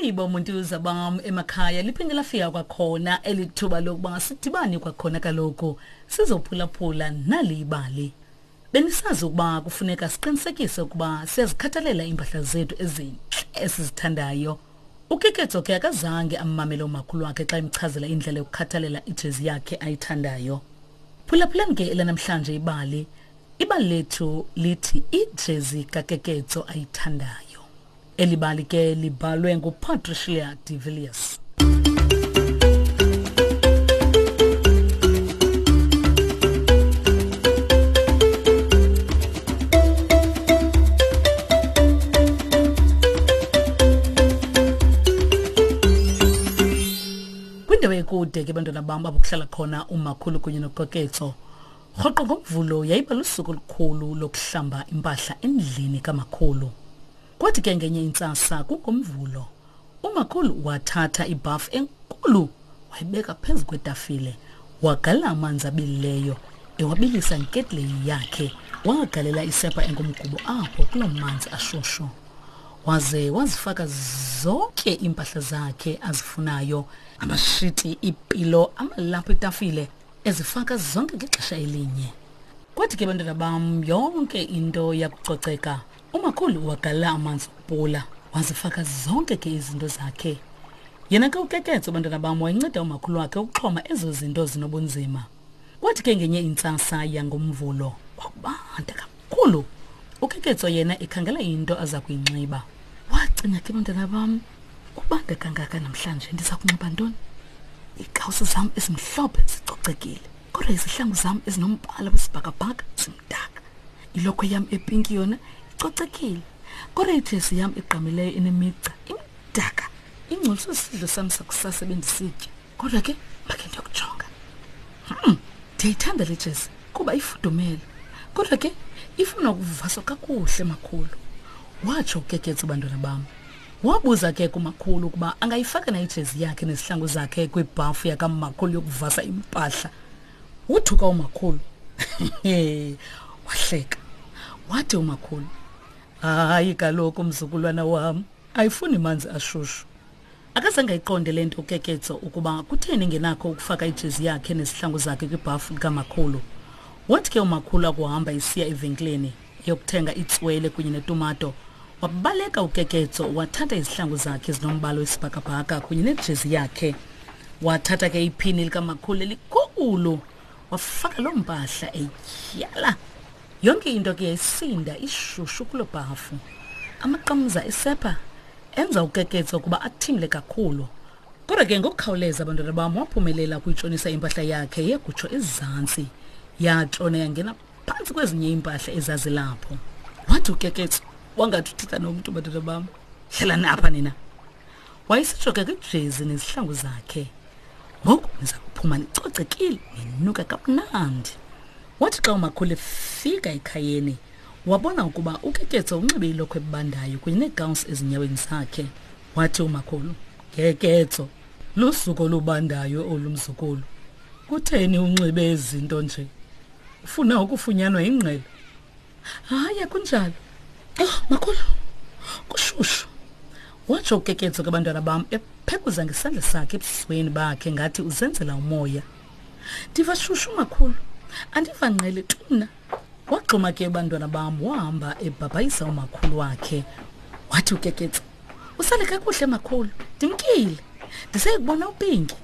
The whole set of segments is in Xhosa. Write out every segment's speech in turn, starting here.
Molweni bomuntuza bam emakhaya, liphinde lafika kwakhona eli thuba lokuba sidibane kwakhona kaloku sizophulaphula nali ibali. Benisazi ukuba kufuneka siqinisekise ukuba siyazikhathalela iimpahla zethu ezintle esizithandayo. UKeketso ke akazange ammamele umakhulu wakhe xa emchazela indlela yokukhathalela ijezi yakhe ayithandayo. Phulaphulani ke elanamhlanje ibali. Ibali lethu lithi ijezi kaKeketso ayithandayo. Eli bali ke libhalwe nguPatricia de Villiers. Kwindawo ekude ke bantwana bam apho kuhlala khona umakhulu kunye noKoketso. Rhoqo ngoMvulo yayiba lusuku olukhulu lokuhlamba impahla endlini kamakhulu. Kwathi ke ngenye intsasa kungoMvulo, umakhulu wathatha ibhafu enkulu wayibeka phezu kwetafile, wagalela amanzi abilileyo ewabilisa ngeketleyi yakhe, wagalela isepha engumgubo apho kuloo manzi ashushu. Waze wazifaka zonke iimpahla zakhe azifunayo, amashiti, iipilo, amalaphu etafile, ezifaka zonke ngexesha elinye. Kwathi ke bantwana bam yonke into yakucoceka, umakhulu wagalela amanzi okupula wazifaka zonke ke izinto zakhe. Yena ke uKeketso bantwana bam wayenceda umakhulu wakhe ukuxhoma ezo zinto zinobunzima. Kwathi ke ngenye intsasa yangoMvulo kwakubanda kakhulu. UKeketso yena ekhangela into aza kuyinxiba. Wacinga ke bantwana bam Kubanda kangaka namhlanje ndiza kunxiba ntoni? Iikawusi zam ezimhlophe zicocekile, kodwa izihlangu zam ezinombala wesibhakabhaka zimdaka. Ilokhwe yam epinki yona icocekile, kodwa ijezi yam egqamileyo enemigca imdaka. Ingcoliswe sisidlo sam sakusasa ebendisitya, kodwa ke makhe ndiyokujonga. Ndiyayithanda le jezi kuba ifudumele, kodwa ke ifuna ukuvaswa kakuhle makhulu, watsho uKeketso bantwana bam. Wabuza ke kumakhulu ukuba angayifaka na ijezi yakhe nezihlangu zakhe kwibhafu yakamakhulu yokuvasa impahla. Wothuka umakhulu. Wahleka. Wathi umakhulu, hayi kaloku mzukulwana wam, ayifuni manzi ashushu. Akazange ayiqonde le nto uKeketso ukuba kutheni engenakho ukufaka ijezi yakhe nezihlangu zakhe kwibhafu likamakhulu. Wathi ke umakhulu akuhamba esiya evenkileni eyokuthenga itswele kunye netumato, wabaleka uKeketso wathatha izihlangu zakhe ezinombala wesibhakabhaka kunye nejezi yakhe. Wathatha ke iphini likamakhulu elikhulu wafaka loo mpahla etyhala. Yonke into ke yayisinda ishushu kuloo bhafu. Amaqamza esepha enza uKeketso ukuba athimle kakhulu. Kodwa ke ngokukhawuleza abantwana bam waphumelela ukuyitshonisa impahla yakhe yagutsho ezantsi. Yatshona yangena phantsi kwezinye iimpahla ezazilapho. Wathi uKeketso wangathi uthetha nomntu bantwana bam. Hlalani apha nina. Wayesitsho ke kwijezi nezihlangu zakhe. Ngoku niza kuphuma nicocekile ninuka kamnandi. Wathi xa umakhulu efika ekhayeni wabona ukuba uKeketso unxibe ilokhwe ebandayo kunye neegawunsi ezinyaweni zakhe. Wathi umakhulu, Keketso, lusuku olubandayo olu mzukulu. Kutheni unxibe ezi zinto nje? Ufuna ukufunyanwa yingqele? Hayi, akunjalo. Oh, makhulu, kushushu. Watsho uKeketso ke bantwana bam ephekuza ngesandla sakhe ebusweni bakhe ngathi uzenzela umoya. Ndiva shushu makhulu, andiva ngqele tu mna. Waxhuma ke bantwana bam wahamba ebhabhayisa umakhulu wakhe. Wathi uKeketso, usale kakuhle makhulu, ndimkile. Ndiseyikubona uPinki.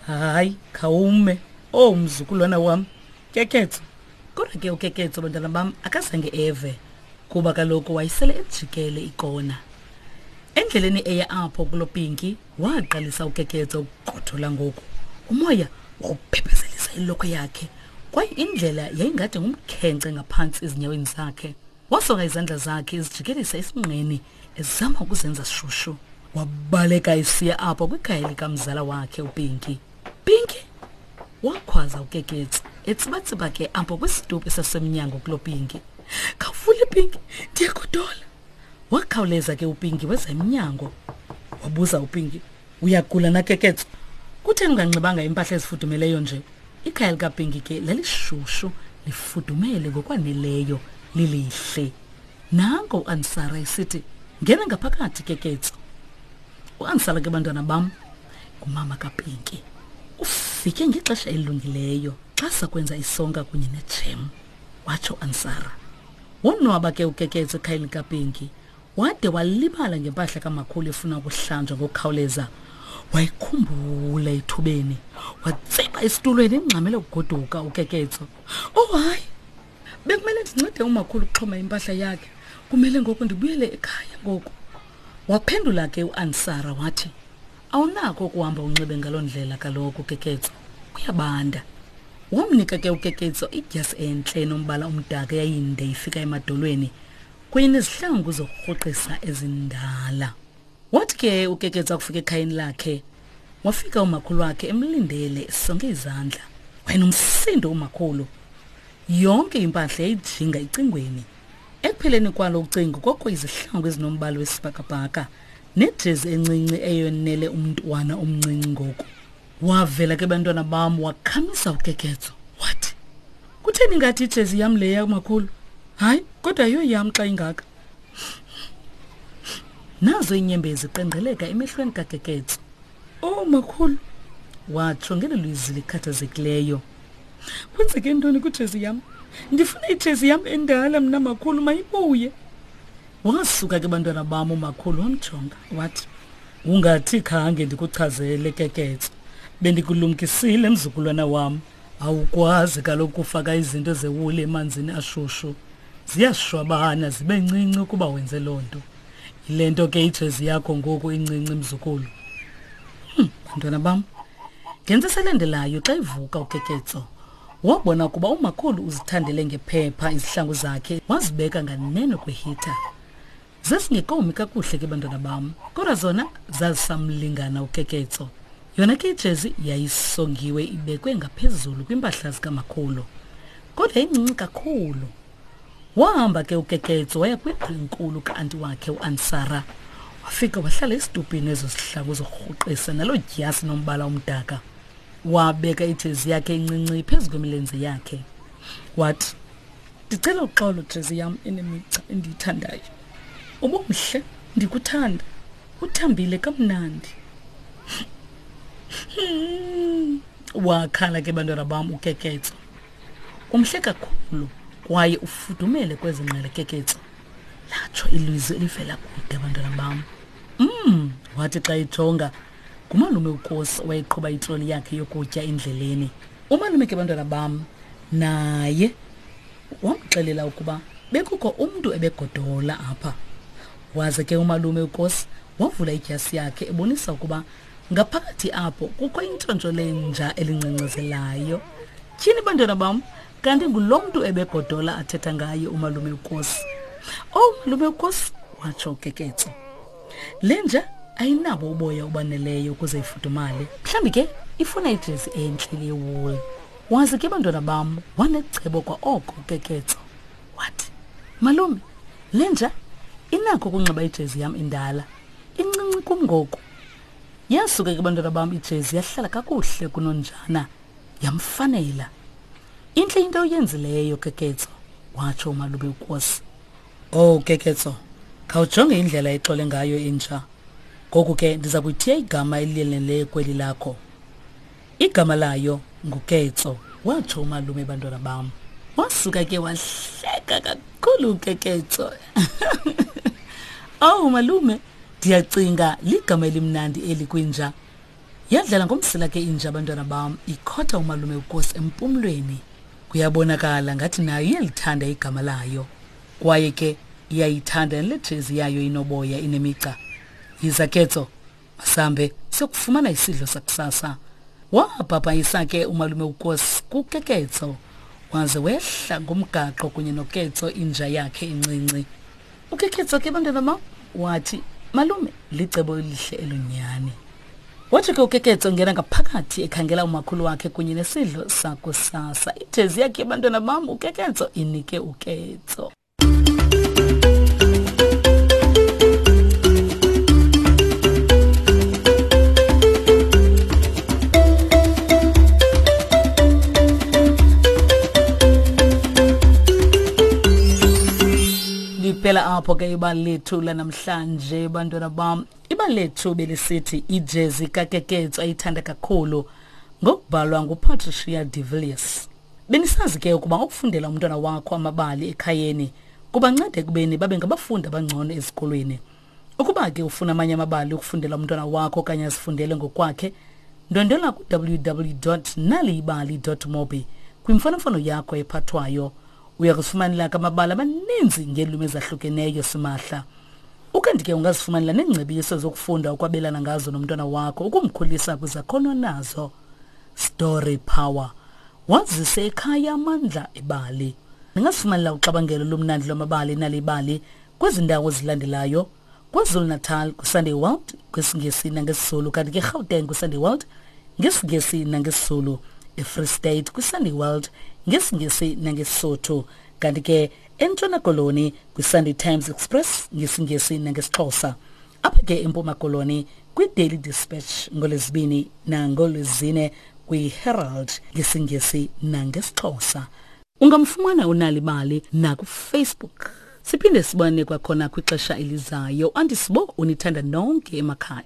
Hayi, khawume. Oh, mzukulwana wam. Keketso. Kodwa ke uKeketso bantwana bam akazange eve kuba kaloku wayesele ejikele ikona. Endleleni eya apho kulo Pinki waqalisa uKeketso ukugodola ngoku. Umoya wawuphephezelisa ilokhwe yakhe kwaye indlela yayingade ngumkhenkce ngaphantsi ezinyaweni zakhe. Wasonga izandla zakhe ezijikelisa esinqeni ezama ukuzenza shushu. Wabaleka esiya apho kwikhaya likamzala wakhe uPinki. Pinki! Wakhwaza uKeketso etsibatsiba ke apho kwisitupu esasemnyango kuloo Pinki. Khawuvule Pinki, ndiyagodola. Wakhawuleza ke uPinki weza emnyango. Wabuza uPinki, uyagula na Keketso? Kutheni unganxibanga impahla ezifudumeleyo nje? Ikhaya likaPinki ke lalishushu lifudumele ngokwaneleyo lilihle. Nanko uAnsara esithi, ngena ngaphakathi Keketso. Uansala ke bantwana bam ngumama kaPinki. Ufike ngexesha elilungileyo xa sakwenza isonka kunye nejem, watsho uAnsara. Wonwaba ke uKeketso ekhayeni likaPinki. Wade walibala ngempahla kamakhulu efuna ukuhlanjwa ngokukhawuleza. Wayikhumbula ethubeni. Watsiba esitulweni engxamele ukugoduka uKeketso. Oh hayi, bekumele ndincede umakhulu ukuxhoma impahla yakhe. Kumele ngoku ndibuyele ekhaya ngoku. Waphendula ke uAnsara wathi, Awunako ukuhamba unxibe ngaloo ndlela kaloku Keketso. Kuyabanda. Wamnika ke uKeketso idyasi entle enombala omdaka eyayinde ifika emadolweni kunye nezihlangu zokurhuqisa ezindala. Wathi ke uKeketso akufika ekhayeni lakhe, wafika umakhulu wakhe emlindele esonge izandla. Wayenomsindo umakhulu. Yonke impahla yayijinga ecingweni. Ekupheleni kwalo ucingo kwakho izihlangu ezinombala wesibhakabhaka nejezi encinci eyonele umntwana omncinci ngoku. Wavela ke bantwana bam wakhamisa uKeketso wathi, Kutheni ngathi ijezi yam leya makhulu? Hayi, kodwa yiyo yam xa ingaka. Nazo iinyembezi qengqeleka emehlweni kaKeketso. Oh makhulu, watsho ngelo lizwi likhathazekileyo. Kwenzeke ntoni kwijezi yam? Ndifuna ijezi yam endala mna makhulu, mayibuye. Wasuka ke bantwana bam umakhulu wamjonga wathi, Ungathi khange ndikuchazele Keketso. Bendikulumkisile mzukulwana wam. Awukwazi kaloku kufaka izinto zewuli emanzini ashushu. Ziyashwabana zibe ncinci ukuba wenze loo nto. Yile nto ke ijezi yakho ngoku incinci mzukulu. Bantwana bam, ngentsasa elandelayo xa ivuka uKeketso, wabona ukuba umakhulu uzithandele ngephepha izihlangu zakhe wazibeka nganeno kwehitha. Zazingekomi kakuhle ke bantwana bam, kodwa zona zazisamlingana uKeketso. Yona ke ijezi yayisongiwe ibekwe ngaphezulu kwimpahla zikamakhulu, kodwa incinci kakhulu. Wahamba ke uKeketso waya kwindlu enkulu ka-anti wakhe uAnsara. Wafika wahlala esitupini ezo zihlangu zokurhuqisa naloo dyasi nombala omdaka. Wabeka ijezi yakhe encinci phezu kwemilenze yakhe. Wathi, Ndicela uxolo jezi yam enemigca endiyithandayo. Ubumhle, ndikuthanda. Uthambile kamnandi. Wakhala ke bantwana bam uKeketso. Umhle kakhulu kwaye ufudumele kwezi ngqele Keketso. Latsho ilizwi elivela kude bantwana bam. Wathi xa ejonga ngumalume uKosi owayeqhuba itroli yakhe yokutya endleleni. Umalume ke bantwana bam naye wamxelela ukuba bekukho umntu ebegodola apha. Waze ke umalume uKosi wavula idyasi yakhe ebonisa ukuba ngaphakathi apho kukho intshontsho lenja elingcengcezelayo. Tyhini bantwana bam, kanti ngulo mntu ebegodola athetha ngaye umalume uKosi. Oh malume uKosi, watsho uKeketso. Le nja ayinabo uboya obaneleyo ukuze ifudumale. Mhlawumbi ke ifuna ijezi entle yewuli. Waze ke bantwana bam wanecebo kwa oko uKeketso. Wathi, malume, le nja inakho ukunxiba ijezi yam endala. Incinci kum ngoku. Yasuka ke bantwana bam ijezi yahlala kakuhle kunonjana, yamfanela. Intle into oyenzileyo Keketso, watsho umalume uKosi. Oh Keketso, khawujonge indlela exole ngayo inja. Ngoku ke ndiza kuyithiya igama eliyeneleyo kweli lakho. Igama layo nguKetso, watsho umalume bantwana bam. Wasuka ke wahleka kakhulu uKeketso. Oh malume, ndiyacinga ligama elimnandi eli kwinja. Yadlala ngomsila ke inja bantwana bam, ikhotha umalume uKosi empumlweni. Kuyabonakala ngathi nayo iyalithanda igama layo. Kwaye ke iyayithanda nale jezi yayo inoboya inemigca. Yiza Ketso, masambe siyokufumana isidlo sakusasa. Wabhabhayisa ke umalume uKosi kuKeketso, waze wehla ngomgaqo kunye noKetso inja yakhe encinci. UKeketso ke bantwana bam wathi, malume, licebo elihle elo nyhani. Wathi ke uKeketso ngena ngaphakathi ekhangela umakhulu wakhe kunye nesidlo sakusasa. Ijezi yakhe bantwana bam uKeketso inike uKetso. Liphela apho. Liphelapho ke ibali lethu lanamhlanje bantwana bam. Ibali lethu belisithi ijezi kaKeketso ayithanda kakhulu ngokubhalwa nguPatricia de Villiers. Benisazi ke ukuba ukufundela umntwana wakho amabali ekhayeni kubanceda ekubeni babe ngabafundi abangcono ezikolweni. Ukuba ke ufuna amanye amabali ukufundela umntwana wakho okanye azifundele ngokwakhe, ndwendwela ku-www.naliyibali.mobi kwimfonomfono yakho ephathwayo. Uya kuzifumanela ke amabali amaninzi ngeelwimi ezahlukeneyo simahla. Ukanti ke ungazifumanela neengcebiso zokufunda ukwabelana ngazo nomntwana wakho ukumkhulisa kwizakhono nazo. Story Power. Wazise ekhaya amandla ebali. Ningazifumanela uxabangelo lomnandi lwamabali nalibali kwezi ndawo zilandelayo KwaZulu-Natal kwiSunday World kwisiNgesi nangesiZulu kanti ke eGauteng kwiSunday World ngesiNgesi nangesiZulu eFree State kwiSunday World ngesiNgesi nangeSisotho kanti ke eNtshona Koloni kwiSunday Times Express ngesiNgesi nangesiXhosa apha ke eMpuma Koloni kwiDaily Dispatch ngolwezibini nangolwezine kwiHerald ngesiNgesi nangesiXhosa Ungamfumana uNalibali nakuFacebook. Siphinde sibone kwakhona kwixesha elizayo. Andisibo unithanda nonke emakhaya.